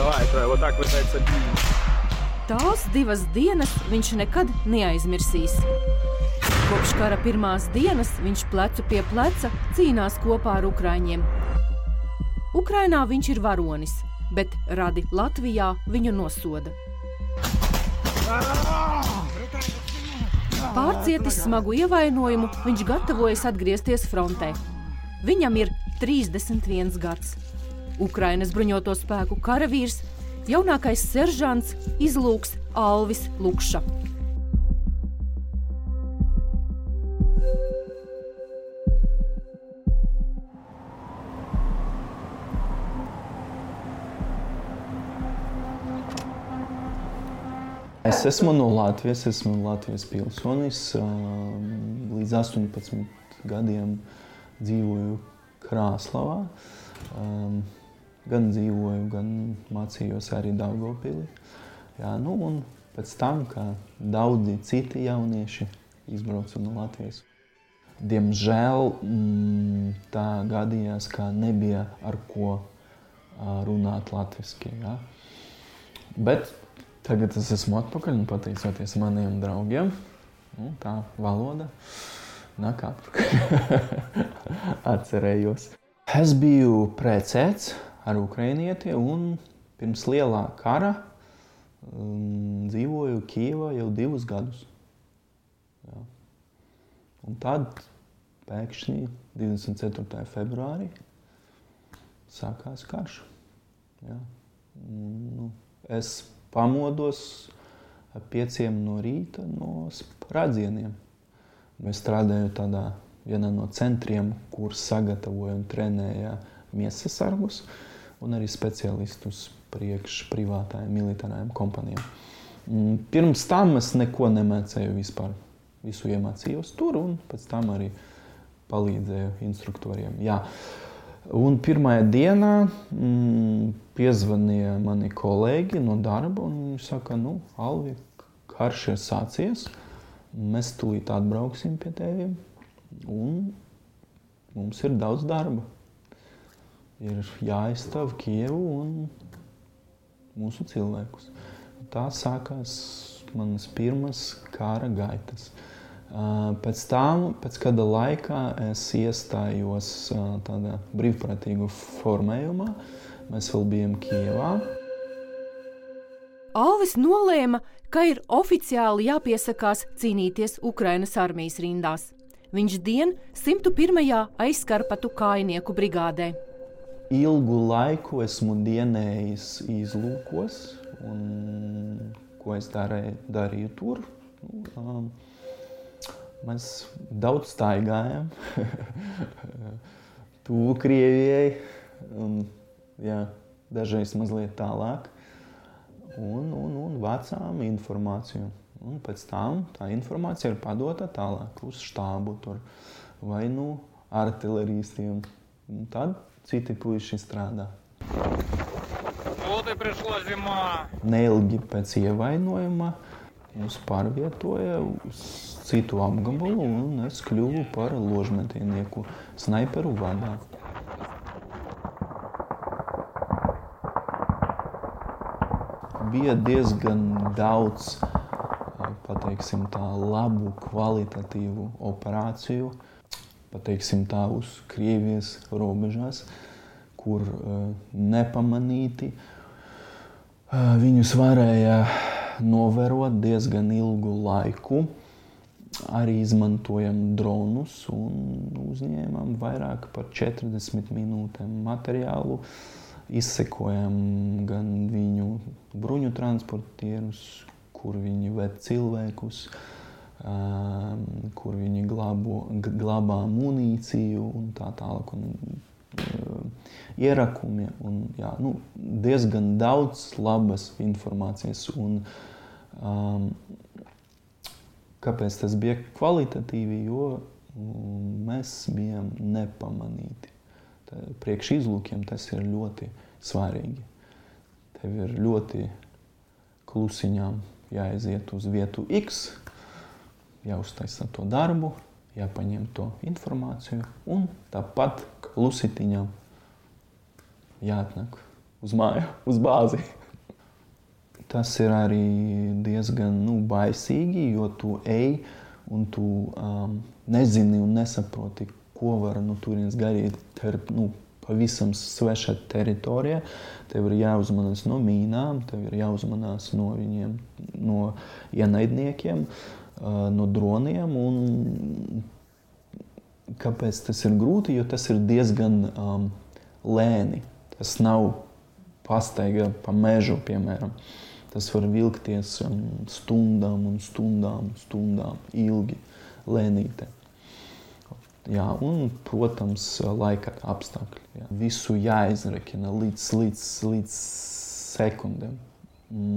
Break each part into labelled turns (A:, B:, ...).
A: вот так вот это.
B: Tās 2 dienas viņš nekad neaizmirsīs. Kopš kara pirmās dienas viņš plecu pie pleca cīnās kopā ar ukraiņiem. Ukrainā viņš ir varonis, bet radi Latvijā viņu nosoda. Pārcietis smagu ievainojumu, viņš gatavojas atgriezties frontē. Viņam ir 31 gads. Ukrainas bruņoto spēku karavīrs, jaunākais seržants izlūks Alvis Lukša.
C: Es esmu no Latvijas, esmu Latvijas pilsonis. Līdz 18 gadiem dzīvoju Krāslavā. Gan dzīvoju, gan mācījos arī Daugavpilī. Jā, nu un pēc tam, kā daudzi citi jaunieši izbrauca no Latvijas. Diemžēl tā gadījās, ka nebija ar ko runāt latviski. Jā. Bet tagad es esmu atpakaļ un pateicoties maniem draugiem, tā valoda nāk atpakaļ. Atcerējos. Es biju precēts ar ukrainieti un pirms lielā kara dzīvoju Kijevā jau 2 gadus. Jā. Un tad pēkšņi 24. februārī sākās karš. Jā. Nu, es pamodos 5 no rīta no sprādzieniem. Mēs strādājam tādā vienā no centriem, kur sagatavoja un trenēja miesasargus un arī speciālistus priekš privātājiem militārajiem kompanijām. Pirms tam es neko nemācēju vispār. Visu iemācījos tur un pēc tam arī palīdzēju instruktoriem. Jā. Un pirmajā dienā piezvanīja mani kolēģi no darba un viņi saka, Alvi, karš ir sācies, mēs tūlīt atbrauksim pie teviem un mums ir daudz darba. Ir jāaizstāv Kijevu un mūsu cilvēkus. Tā sākās manas pirmas kara gaitas. Pēc tam, pēc kāda laikā es iestājos tādā brīvprātīgu formējumā. Mēs vēl bijām Kijevā.
B: Alvis nolēma, ka ir oficiāli jāpiesakās cīnīties Ukrainas armijas rindās. Viņš dien 101. aizskarpatu kājnieku brigādē.
C: Ilgu laiku esmu dienējis izlūkos, un ko es darīju tur. Mēs daudz staigājam, tuvu Krievijai, un, dažreiz mazliet tālāk, un vācām informāciju. Un pēc tam tā informācija ir padota tālāk uz štābu tur, vai artileristiem. Un tad citi puiši strādā. Neilgi pēc ievainojuma mūs pārvietoja uz citu apgabalu un es kļuvu par ložmetienieku snaiperu vadā. Bija diezgan daudz, pateiksim tā, labu, kvalitatīvu operāciju, pateiksim tā, uz Krievijas robežās, kur nepamanīti viņus varēja novērot diezgan ilgu laiku. Arī izmantojam dronus un uzņēmām vairāk par 40 minūtēm materiālu. Izsekojam gan viņu bruņu transportierus, kur viņi ved cilvēkus, kur viņi glabā munīciju un tā tālāk, un ierakumi. Un, diezgan daudz labas informācijas. Un, kāpēc tas bija kvalitatīvi? Jo mēs bijām nepamanīti. Priekš izlūkiem tas ir ļoti svarīgi. Tev ir ļoti klusiņām jāaiziet uz vietu X, jāuztaisa to darbu, jāpaņem to informāciju un tāpat klusitiņām jāatnāk uz māju, uz bāzi. Tas ir arī diezgan baisīgi, jo tu ej un tu nezini un nesaproti, ko var turienes gaidīt. Te ir pavisam sveša teritorija. Tev ir jāuzmanās no mīnām, tev ir jāuzmanās no viņiem, no ienaidniekiem, no droniem. Un kāpēc tas ir grūti? Jo tas ir diezgan lēni. Tas nav pastaiga pa mežu, piemēram. Tas var vilkties stundām un stundām, ilgi, lēnīte. Jā, un, protams, laika apstākļi. Jā. Visu jāizrekina līdz sekundēm.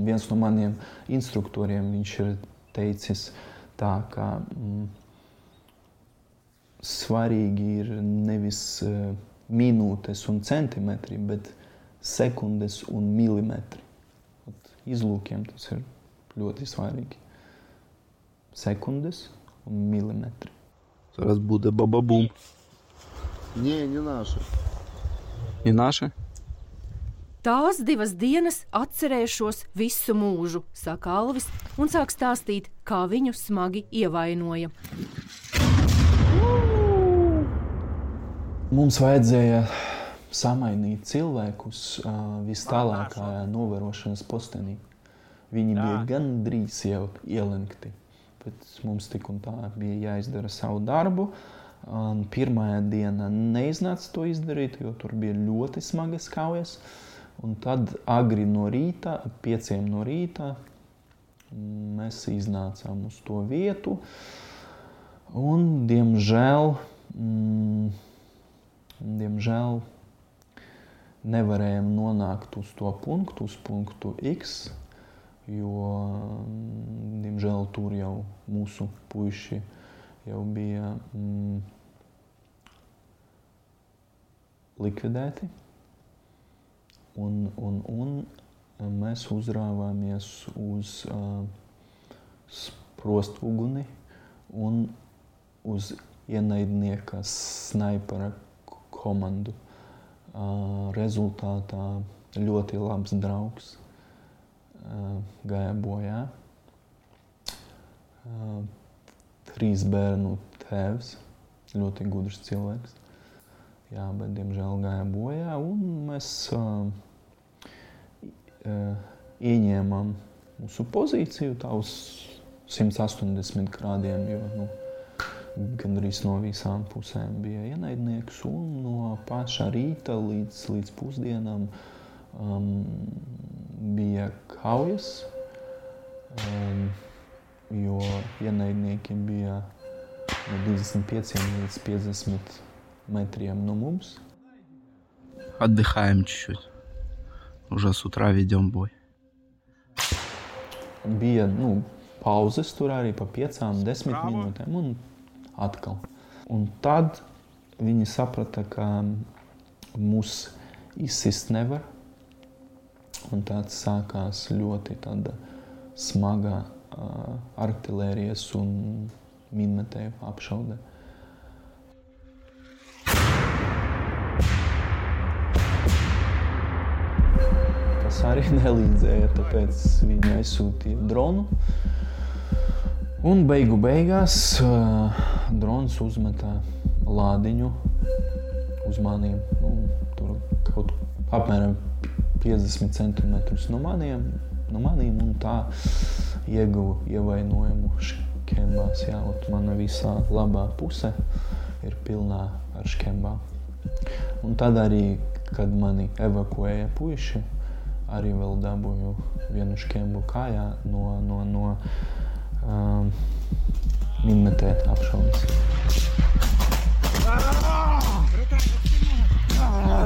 C: Viens no maniem instruktoriem, viņš ir teicis tā, ka svarīgi ir nevis minūtes un centimetri, bet sekundes un milimetri. Izlūkiem tas ir ļoti svarīgi. Sekundes un milimetri.
D: Зараз буде баба-бум.
E: Не наши.
D: Не наши?
B: Tās 2 dienas atcerēšos visu mūžu, saka Alvis, un sāk stāstīt, kā viņu smagi ievainoja.
C: Mums vajadzēja samainīt cilvēkus vistālākajā novērošanas postenī. Viņi bija gandrīz jau ielenkti. Bet mums tik un tā bija jāizdara savu darbu. Pirmajā diena neiznāca to izdarīt, jo tur bija ļoti smagas kaujas. Un tad agri no rīta, 5 no rīta, mēs iznācām uz to vietu. Un, diemžēl nevarējām nonākt uz to punktu, uz punktu X, jo, diemžēl, tur jau mūsu puiši jau bija likvidēti. Un mēs uzrāvāmies uz sprostuguni un uz ienaidnieka snaipera komandu. Rezultātā ļoti labs draugs gāja bojā. 3 bērnu tēvs, ļoti gudrs cilvēks. Jā, bet diemžēl gāja bojā, un mēs ieņēmām mūsu pozīciju tā uz 180 grādiem, jo gandrīz no visām pusēm bija ienaidnieks, un no paša rīta līdz pusdienām bija kaujas, jo ienaidnieki bija no 25 līdz 50 метрiem no mums.
D: Отдыхаем чуть-чуть. Уже с утра ведем бой.
C: Bija pauzes tur arī pa 5-10 minūtēm un atkal. Un tad viņi saprata, ka mūs izsist nevar. Un tāds sākās ļoti tāda smaga artilērijas un minmetēju apšaude. Tas arī nelīdzēja, tāpēc viņi aizsūtīja dronu. Un beigās drons uzmetā lādiņu uz maniem. Tur kaut apmēram 50 centimetrus no maniem, un tā ieguva ievainojumu škembās. Jā, mana visā labā puse ir pilnā ar škembām. Un tad arī, kad mani evakuēja puiši, arī vēl dabūju vienu škembu kājā no minmetē apšaudas.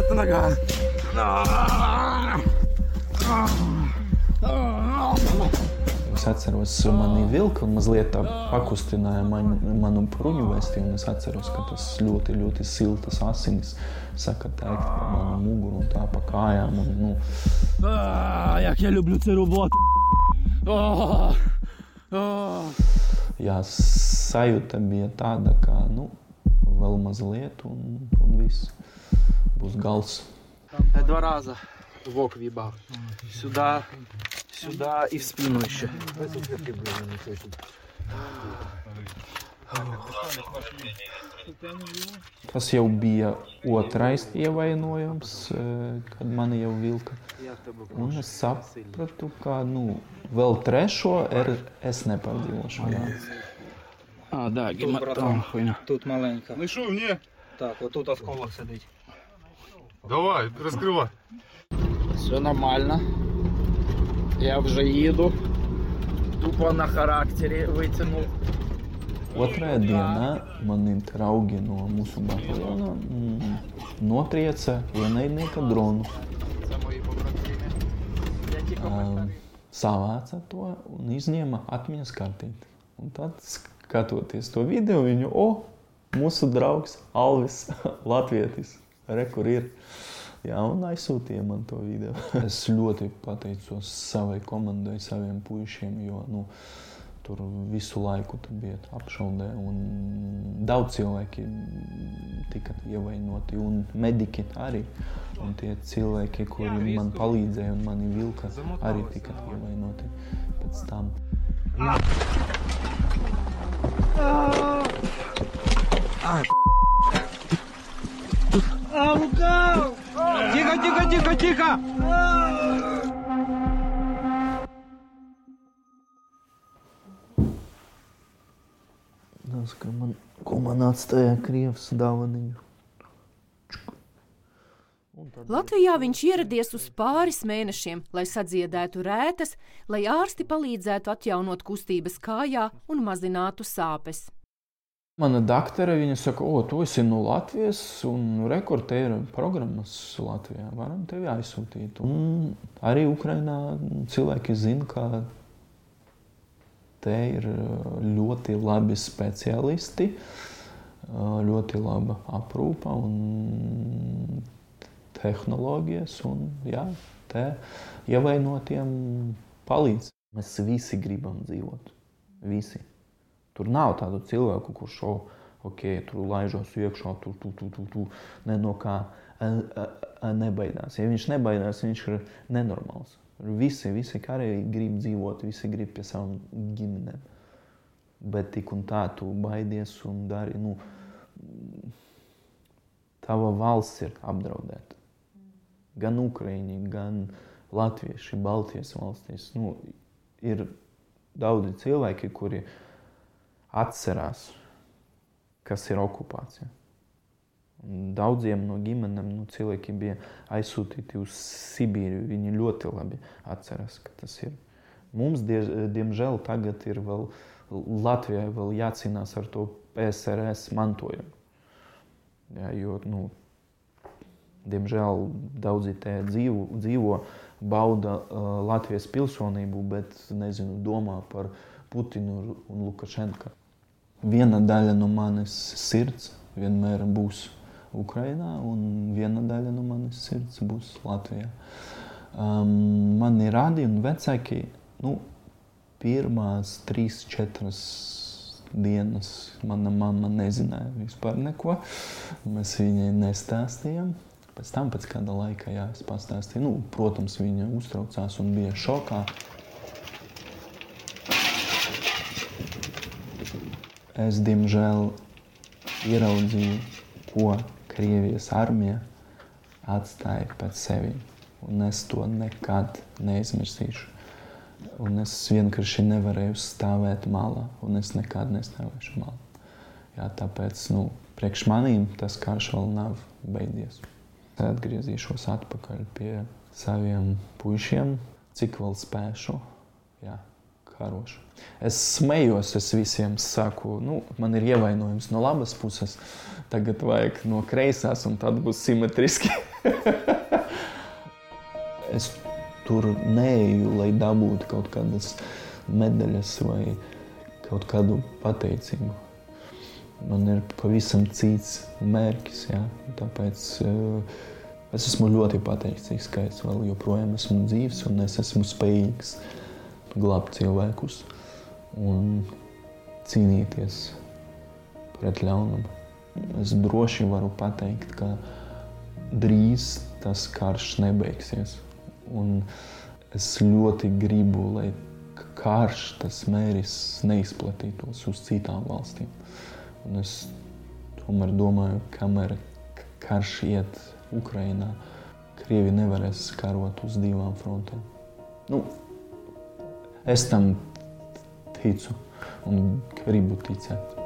D: Это нога.
C: Es atceros, mani vilka un mazliet tā pakustināja manu bruņu vēsti, un es atceros, ka tas ļoti, ļoti siltas asinis saka teikt pa manu muguru un tā pa kājām.
D: Як я люблю цю роботу.
C: Jā, sajūta bija tāda, ka, vēl mazliet un viss būs gals.
D: 2 раза
F: в вибав. Сюда и в спину еще.
C: Tas jau bija otrais ievainojums, kad mani jau vilka. Un es sapratu, ka vēl trešo es nepārdzīvošu.
F: Да, хуйня.
A: Тут маленька.
G: Ну що, ні?
A: Так, отут осколок сидить.
G: Давай, розкривай.
F: Все нормально. Я вже їду. Тупо на характері витягнув.
C: Otrajā dienā mani draugi no mūsu bataljona notrieca ienaidnieka dronu. Savāca to un izņēma atmiņas kartīti. Un tad, skatoties to video, viņu, mūsu draugs Alvis, latvietis, kur ir. Jā, un aizsūtīja man to video. Es ļoti pateicos savai komandai, saviem puišiem, jo, tur visu laiku bija apšaudē un daudz cilvēki tika ievainoti un mediķi arī. Un tie cilvēki, kuri man palīdzēja un mani vilka, arī tika ievainoti pēc tam.
D: Лукав! Тихо!
C: Ko man atstāja Krievs dāvaniņu.
B: Latvijā viņš ieradies uz pāris mēnešiem, lai sadziedētu rētas, lai ārsti palīdzētu atjaunot kustības kājā un mazinātu sāpes.
C: Mana daktore, viņa saka, tu esi no Latvijas un te ir programmas Latvijā, varam tevi aizsūtīt. Un arī Ukrainā cilvēki zina, ka te ir ļoti labi speciālisti, ļoti laba aprūpa un tehnoloģijas un te ievainotiem palīdz. Mēs visi gribam dzīvot, visi. Tur nav tādu cilvēku, kurš tur laižos iekšā, tu ne no kā nebaidās. Ja viņš nebaidās, viņš ir nenormāls. Visi karēji grib dzīvot, visi grib pie savām ģimenēm. Bet tik un tā tu baidies un dari, tava valsts ir apdraudēta. Gan Ukraiņi, gan latvieši, Baltijas valstīs. Ir daudzi cilvēki, kuri atcerās, kas ir okupācija. Daudziem no ģimenēm cilvēki bija aizsūtīti uz Sibīriju. Viņi ļoti labi atcerās, ka tas ir. Mums, diemžēl, tagad ir vēl Latvijai vēl jācīnās ar to PSRS mantojumu. Jo, diemžēl daudzi te dzīvo, bauda Latvijas pilsonību, bet, domā par Putinu un Lukašenku. Viena daļa no manis sirds vienmēr būs Ukrainā, un viena daļa no manis sirds būs Latvijā. Mani radi un vecāki, pirmās 3-4 dienas mana mamma nezināja vispār neko. Mēs viņai nestāstījām. Pēc tam, pēc kāda laika, es pastāstīju. Protams, viņa uztraucās un bija šokā. Es, diemžēl, ieraudzīju, ko Krievijas armija atstāja pēc sevi. Un es to nekad neizmirsīšu. Un es vienkārši nevarēju stāvēt malā. Un es nekad nestāvēšu malā. Tāpēc, priekš manīm tas karš vēl nav beidzies. Atgriezīšos atpakaļ pie saviem puišiem, cik vēl spēšu. Karošu. Es smējos, es visiem saku, man ir ievainojums no labas puses, tagad vajag no kreisās, un tad būs simetriski. Es tur neeju, lai dabūtu kaut kādas medaļas vai kaut kādu pateicību. Man ir pavisam cits mērķis, tāpēc es esmu ļoti pateicīgs, ka es vēl joprojām esmu dzīvs un es esmu spējīgs glābt cilvēkus un cīnīties pret ļaunumu. Es droši varu pateikt, ka drīz tas karš nebeigsies. Un es ļoti gribu, lai karš, tas mēris neizplatītos uz citām valstīm. Un es tomēr domāju, kamēr karš iet Ukrainā, Krievi nevarēs karot uz divām frontēm. Es tam ticu un gribu ticēt.